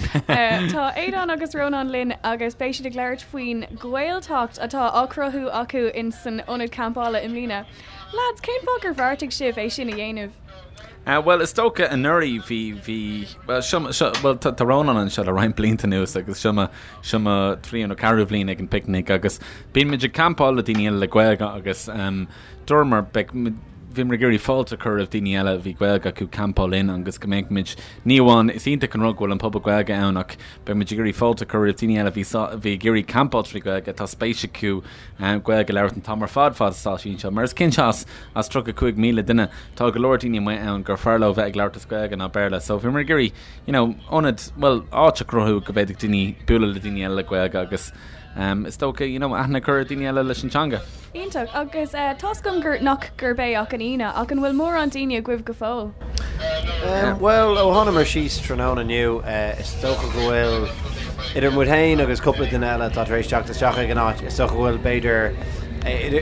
Tá Aodán agus Rónán linn agus beidh siad ag labhairt faoin Ghaeltacht atá á cruthú acu in san ionad campála i mbliana. Lads, cén fáth gur bheartaigh sibh é sin a dhéanamh? Bhuel, is dócha anuraidh bhí, bhí, bhuel, seo, seo, bhuel, tá, tá Rónán anseo le roinnt blianta anuas agus seo mo, seo mo thríú nó ceathrú bhliain ag an bPicnic agus bíonn muid ag campáil le daoine eile le Gaeilge agus dúramar, beidh, bhíomar ag iarraidh fáilte a chur roimh daoine eile a bhí Gaeilge acu campáil linn agus go mbeadh muid, ní amháin, is iontach an rud go bhfuil an pobal Gaeilge ann ach beidh muid ag iarraidh fáilte a chur roimh daoine eile a bhí, a bhí ag iarraidh campáil trí Ghaeilge, tá spéis acu Gaeilge a labhairt an t-am ar fad fad is atá siad anseo. Mar is cinnte as as 35,000 duine tá go leor daoine amuigh ann gur fearr leo bheith ag labhairt as Gaeilge ná Béarla. So bhíomar ag iarraidh you know ionad, bhuel áit a chruthú go bhféadfadh daoine bualadh le daoine eile le Gaeilge agus um is dócha you know aithne a chur ar daoine eile leis an teanga. Iontach. Agus tá's agam gur, nach gurb é ach an Aoine, ach an bhfuil mórán daoine agaibh go fóill? Bhuel, ó thánamar síos tráthnóna inniu, is dócha go bhfuil, idir muid féin agus cúpla duine eile atá tar éis teacht isteach ag an áit, is dócha go bhfuil b'fhéidir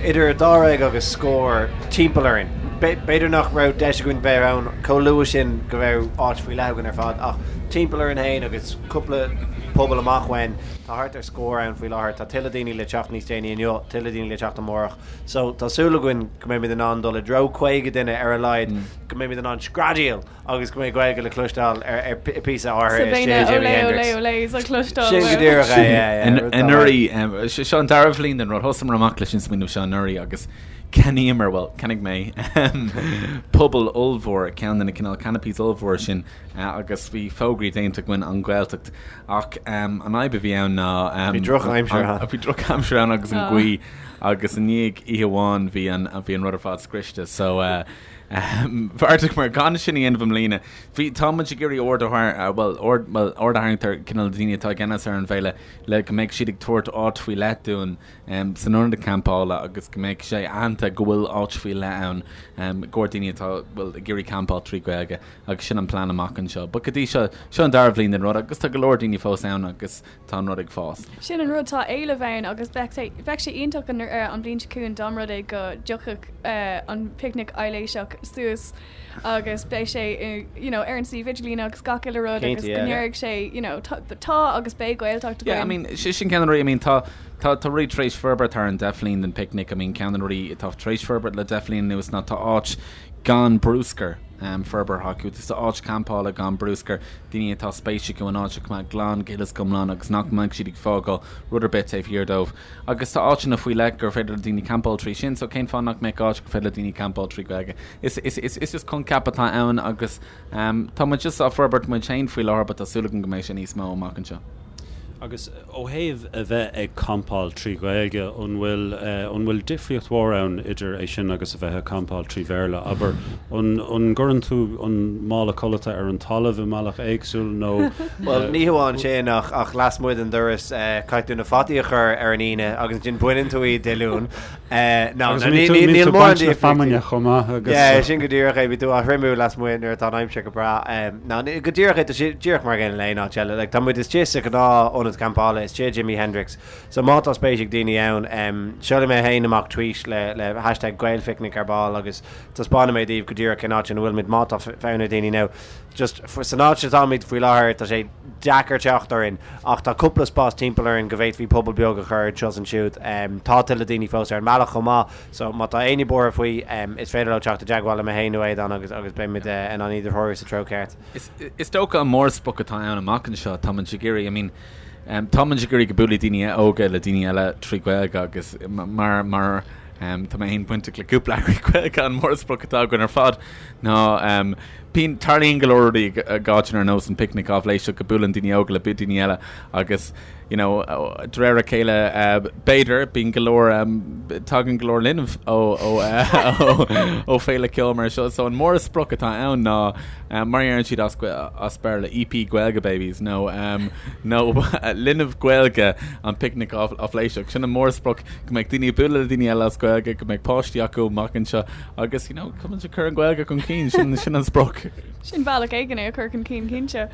idir dáréag agus scór timpeall orainn. B'fhéidir nach raibh deis againn bheith ann chomh luath sin go raibh áit faoi leith againn ar fad, ach timpeall orainn féin agus cúpla puball amach uainn, tá thart ar scór ann faoi láthair. Tá tuilleadh daoine le teacht níos déanaí inniu, tuilleadh daoine le teacht amárach. So tá súil againn go mbeimid in ann dul i dtreo 50 duine ar a laghad, go mbeimid in ann screadaíl agus go mbeidh Gaeilge le cloisteáil ar ar píosa áirithe So beidh na istigh i Jimi olé olé Hendrix. olés á cloisteáil Sin go díreach é, yeah, yeah, rud dá Anuraidh, seo an dara bhliain den rud, thosaíomar amach leis an smaoineamh seo anuraidh agus cheannaíomar, bhuel, cheannaigh mé puball ollmhór, ceann de na cineál canopies ollmhór sin agus bhí fógraí déanta againn an Ghaeltacht ach an fhadhb a bhí ann ná Bhí drochaimsir ann. Bhí drochaimsir ann agus an ghaoth agus i ndiaidh oíche amháin bhí an bhí an rud ar fad scriosta so bheartaíomar gan sin a dhéanamh i mbliana. Bhí tá muid ag iarraidh aird a tharraingt bhuel aird bhuel aird a tharraingt ar cineál na daoine atá i gceannas ar an bhféile le go mbeidh siad ag tabhairt áit faoi leith dúinn san ionad campála agus go mbeidh sé aitheanta go bhfuil áit faoi leith ann i gcomhair daoine atá bhuel ag iarraidh campáil trí Ghaeilge. Agus sin an plean amach anseo. But go dtí seo, seo an dara bhliain den rud agus tá go leor daoine fós ann agus tá an rud ag fás. Sin an rud, tá éileamh ann agus bheadh sé, bheadh sé iontach an, an bhliain seo chugainn dá mba rud é go dtiocfadh an Picnic Aibhléiseach suas agus beidh sé i, you know, ar an suíomh idirlín agus gach uile rud agus go ndéarfaidh sé, you know, tá, tá agus beidh Gaeltacht againn. Yeah, I mean, sin ceann de na rudaí, I mean, tá, tá, tá rudaí tar éis forbairt thar an deich bhliain den Picnic, I mean, ceann de na rudaí atá tar éis forbairt le deich bhliain anuas ná tá áit gan bruscar forbartha acu. Tá áit campála gan bruscar, daoine atá spéis acu an áit a choimeád glan go huile is go hiomlán agus nach mbeidh siad ag fágáil rud ar bith taobh thiar dóibh. Agus tá áiteanna faoi leith gur féidir le daoine campáil trí sin, so cén fáth nach mbeadh áit gur féidir le daoine campáil trí Ghaeilge? Is, is, is, is just coincheap atá ann agus tá muid just á forbairt muid féin faoi láthair but tá súil agam go mbeidh sé níos mó amach anseo. Agus ó thaobh a bheith ag campáil trí Ghaeilge, an bhfuil, an bhfuil difríocht mhór ann idir é sin agus a bheith ag campáil trí Bhéarla? Abair, an, an gcuireann tú an mála codlata ar an talamh i mbealach éagsúil nó? Bhuel, ní hamháin sin ach, ach lasmuigh den doras, caithfidh tú na fataí a chur ar an Aoine agus ansin baineann tú iad Dé Luain. No, Agus an mbíonn tú, níl mórán difríochtaí. feamainne chomh maith agus. Yeah, sin go díreach é, bíonn tú á thriomú lasmuigh nuair atá an aimsir go breá. Ná, go díreach é, tá sé díreach mar an gcéanna le aon áit eile. Like, tá muid istigh sa ghnáth ionad campála, istigh i Jimi Hendrix. So má tá spéis ag daoine ann, seolfaidh mé féin amach tweet le, le hashtag GaelPhicnic ar ball agus taispeánfaidh mé daoibh go díreach cén áit ina bhfuil muid má tá fonn ar daoine now. Just, san áit atáimid faoi láthair, tá sé deacair teacht orainn ach tá cúpla spás timpeall orainn go bhféadfaí puball beag a chur anseo is ansiúd. Tá tuilleadh daoine fós ar an mbealach chomh maith. So má tá éinne buartha faoi, is féidir leo teacht i dteagmháil le mé féin nó Aodán agus agus beimid in ann iad a threorú sa treo ceart. Is is dócha an mórsprioc atá ann amach anseo, tá muid ag iarraidh, I mean, tá muid ag iarraidh go buailfidh daoine óga le daoine eile trí Ghaeilge agus mar mar tá mé féin bainteach le cúpla eagraíocht Ghaeilge an mórsprioc atá againn ar fad ná bíonn tarlaíonn go leor rudaí ag áiteanna ar nós an Picnic Aibhléiseach go buaileann daoine óga le daoine eile agus you know, de réir a chéile, b'fhéidir, bíonn go leor, tagann go leor linbh ó, ó, ó féile ceoil mar seo. So an mórsprioc atá ann ná, mar a deireann siad as, as Béarla, EP Gaeilge Babies nó, nó linbh Gaeilge an Picnic Aibhléiseach. Sin an mórsprioc, go mbeidh daoine ag bualadh le daoine eile as Gaeilge, go mbeidh páistí acu amach anseo agus, you know, go mbeidh ag cur an Ghaeilge chun cinn, sin, sin an sprioc. Sin bealach éigin é a chur chun cinn, cinnte.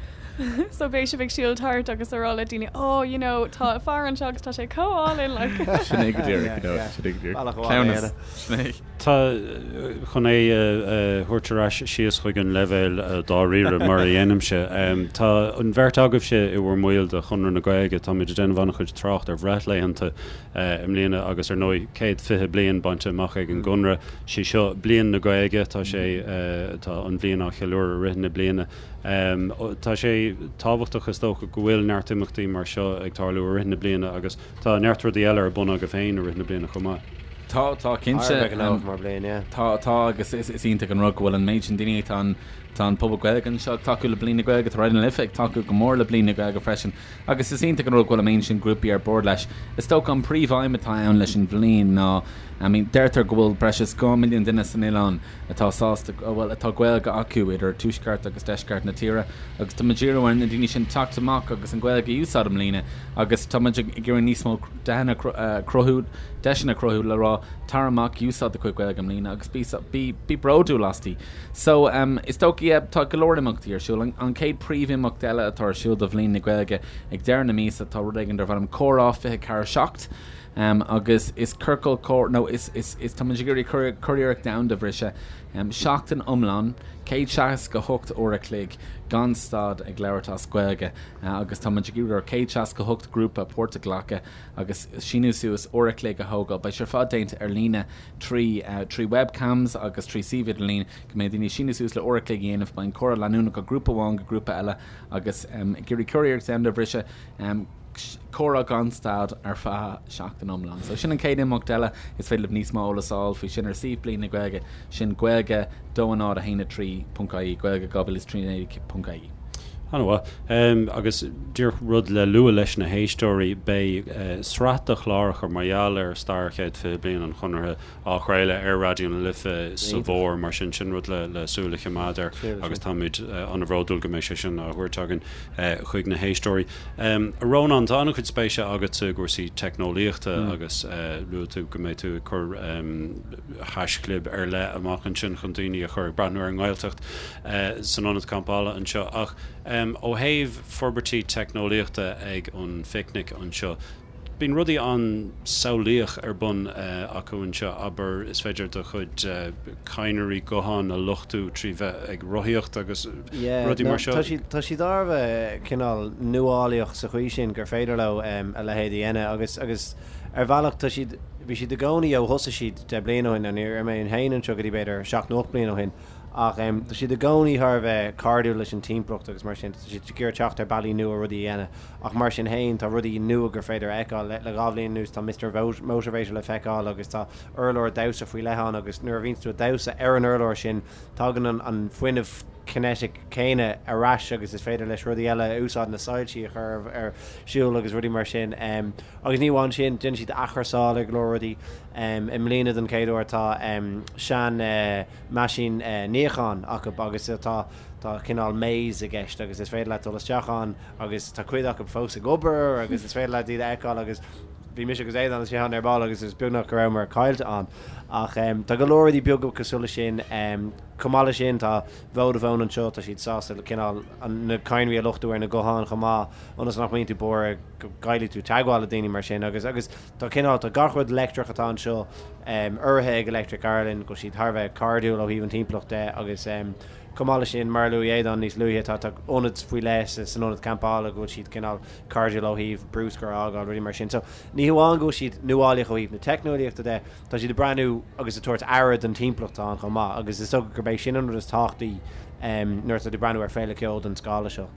So beidh sibh ag siúl thart agus ag rá le daoine, oh, you know, tá fear anseo agus tá sé chomh álainn, like. Sin é go díreach, you know, sin é go díreach. Cleamhnas, sin é. Tá, chun é a thabhairt ar ais síos chuig an leibhéal dáiríre mar a dhéanaimse, tá an bheirt agaibhse i bhur mbaill de Chonradh na Gaeilge, táimid ag déanamh an-chuid trácht ar bhreithlaethanta i mbliana agus ar ndóigh 120 bliain bainte amach ag an gConradh. Sí seo Bliain na Gaeilge, tá sé, tá an bhliain á cheiliúradh i rith na bliana. Tá sé tábhachtach is dócha go bhfuil neart imeachtaí mar seo ag tarlú i rith na bliana agus tá neart rudaí eile ar bun agaibh féin i rith na bliana chomh maith. Tá, tá, cinnte. Thar a bheith gnóthach mar bliain, yeah. Tá, tá, agus is iontach an rud go bhfuil an méid sin daoine, tá an, tá an pobal Gaeilge anseo ag tacú le Bliain na Gaeilge, tá Raidió na Life ag tacú go mór le Bliain na Gaeilge freisin, agus is iontach an rud go bhfuil an méid sin grúpaí ar bord leis. Is dócha an príomh-aidhm atá ann leis an bhliain ná, I mean, deirtear go bhfuil breis is 2 milliún duine san oileán atá sásta, bhuel, atá Gaeilge acu idir tuaisceart agus deisceart na tíre, agus tá muid ag iarraidh ar na daoine sin teacht amach agus an Ghaeilge a úsáid i mbliana agus tá muid ag iarraidh níos mó deiseanna a chruthú, deiseanna a chruthú le rá tar amach, úsáid do chuid Gaeilge i mbliana agus bí, bí, bí bródúil asti. So, is dócha, yeah, tá go leor imeachtaí ar siúl. An chéad príomhimeacht eile atá ar siúl do Bhliain na Gaeilge ag deireadh na míosa tá rud éigin darb ainm Comhrá 24 7. Agus is ciorcal comhrá, nó is, is, is, tá muid ag iarraidh curiarracht domhanda a bhriseadh, seachtain iomlán, 168 uair a chloig gan stad ag labhairt as Gaeilge agus tá muid ag iarraidh ar 168 grúpa páirt a ghlacadh agus síniú suas uair a chloig a thógáil. Beidh sé ar fad déanta ar líne trí, trí webcams agus trí suíomh idirlín go mbeidh daoine ag síniú suas le uair a chloig a dhéanamh. Beidh an comhrá leanúnach ó grúpa amháin go grúpa eile agus ag iarraidh curiarracht domhanda a bhriseadh. Comhrá gan stad ar feadh seachtain iomlán. So sin an chéad imeacht eile. Is féidir libh níos mó eolas a fháil faoi sin ar suíomh Bliain na Gaeilge, sin Gaeilge 2 0 1 3.ie, Gaeilge 2013.ie. An-mhaith. Agus díreach rud le lua leis na héisteoirí, beidh sraith de chláracha mar gheall ar stair chéad 20 bliain an Chonartha á chraoladh ar Raidió na Life sa bhfómhar, mar sin, sin rud le súil a choimeád air agus táimid an-bhródúil go mbeidh sé sin á thabhairt againn chuig na héisteoirí. A Rónáin, tá an-chuid spéise agatsa i gcúrsaí teicneolaíochta agus luaigh tú go mbeidh tú ag cur haischlib ar leith amach ansin chun daoine a chur ag breathnú ar an nGaeltacht san ionad campála anseo. Ach ó thaobh forbairtí teicneolaíochta ag an phicnic anseo, Bíonn rudaí an-samhlaíoch ar bun acu anseo, abair, is féidir do chuid cadhnraí gutháin a luchtú trí bheith ag rothaíocht agus rudaí mar seo. Tá siad, tá siad thar a bheith cineál nuálaíoch sa chaoi sin gur féidir leo a leithéid a dhéanamh agus, agus ar bhealach tá siad, bhí siad i gcónaí ó thosaigh siad 10 bliain ó shin, ní raibh mé féin anseo go dtí b'fhéidir seacht nó ocht bliain ó shin ach tá siad i gcónaí thar a bheith cairdiúil leis an timpeallacht agus mar sin, tá siad ag iarraidh teacht ar bealaí nua rudaí a dhéanamh. Ach mar sin féin, tá rudaí nua gur féidir a fheiceáil. Le 2 bhliain anuas, tá Mister Motivator le feiceáil agus tá urlár damhsa faoi leith ann agus nuair a bhíonns tú ag damhsa ar an urlár sin, tagann an fuinneamh kinetic céanna ar ais agus is féidir leis rudaí eile a úsáid, na soilsí a chur ar siúl agus rudaí mar sin. Agus ní amháin sin, déanann siad athchúrsáil ar go leor rudaí. I mbliana don chéad uair tá sean meaisín níocháin acu agus tá tá cineál maze i gceist agus is féidir leat dul isteach ann agus tá cuid acu fós ag obair agus is féidir leat iad a fheiceáil agus bhí mise agus Aodán istigh ann ar ball agus is beagnach go rabhamar caillte ann. Ach tá go leor rudaí beaga cosúil leis sin. Chomh maith leis sin tá Vodafone anseo, tá siad sásta cineál na cadhnraí a luchtú ar na gutháin chomh maith ionas nach mbíonn tú buartha go gcaillfidh tú teagmháil le daoine mar sin agus agus tá cineál tá gach rud leictreach atá anseo urraithe ag Electric Ireland go bhfuil siad thar a bheith cairdiúil ó thaobh an timpeallacht de agus Chomh maith leis sin, mar a luaigh Aodán níos luaithe, tá tá ionad faoi leith san ionad campála go bhfuil siad cineál cairdiúil ó thaobh bruscar a fhágáil, rudaí mar sin. So, ní hamháin go bhfuil siad nuálaíoch ó thaobh na teicneolaíochta de, tá siad ag breathnú agus ag tabhairt aire don timpeallacht atá ann chomh maith agus is dócha gurb é sin an rud is tábhachtaí nuair atá tú ag breathnú ar féile ceoil den scála seo.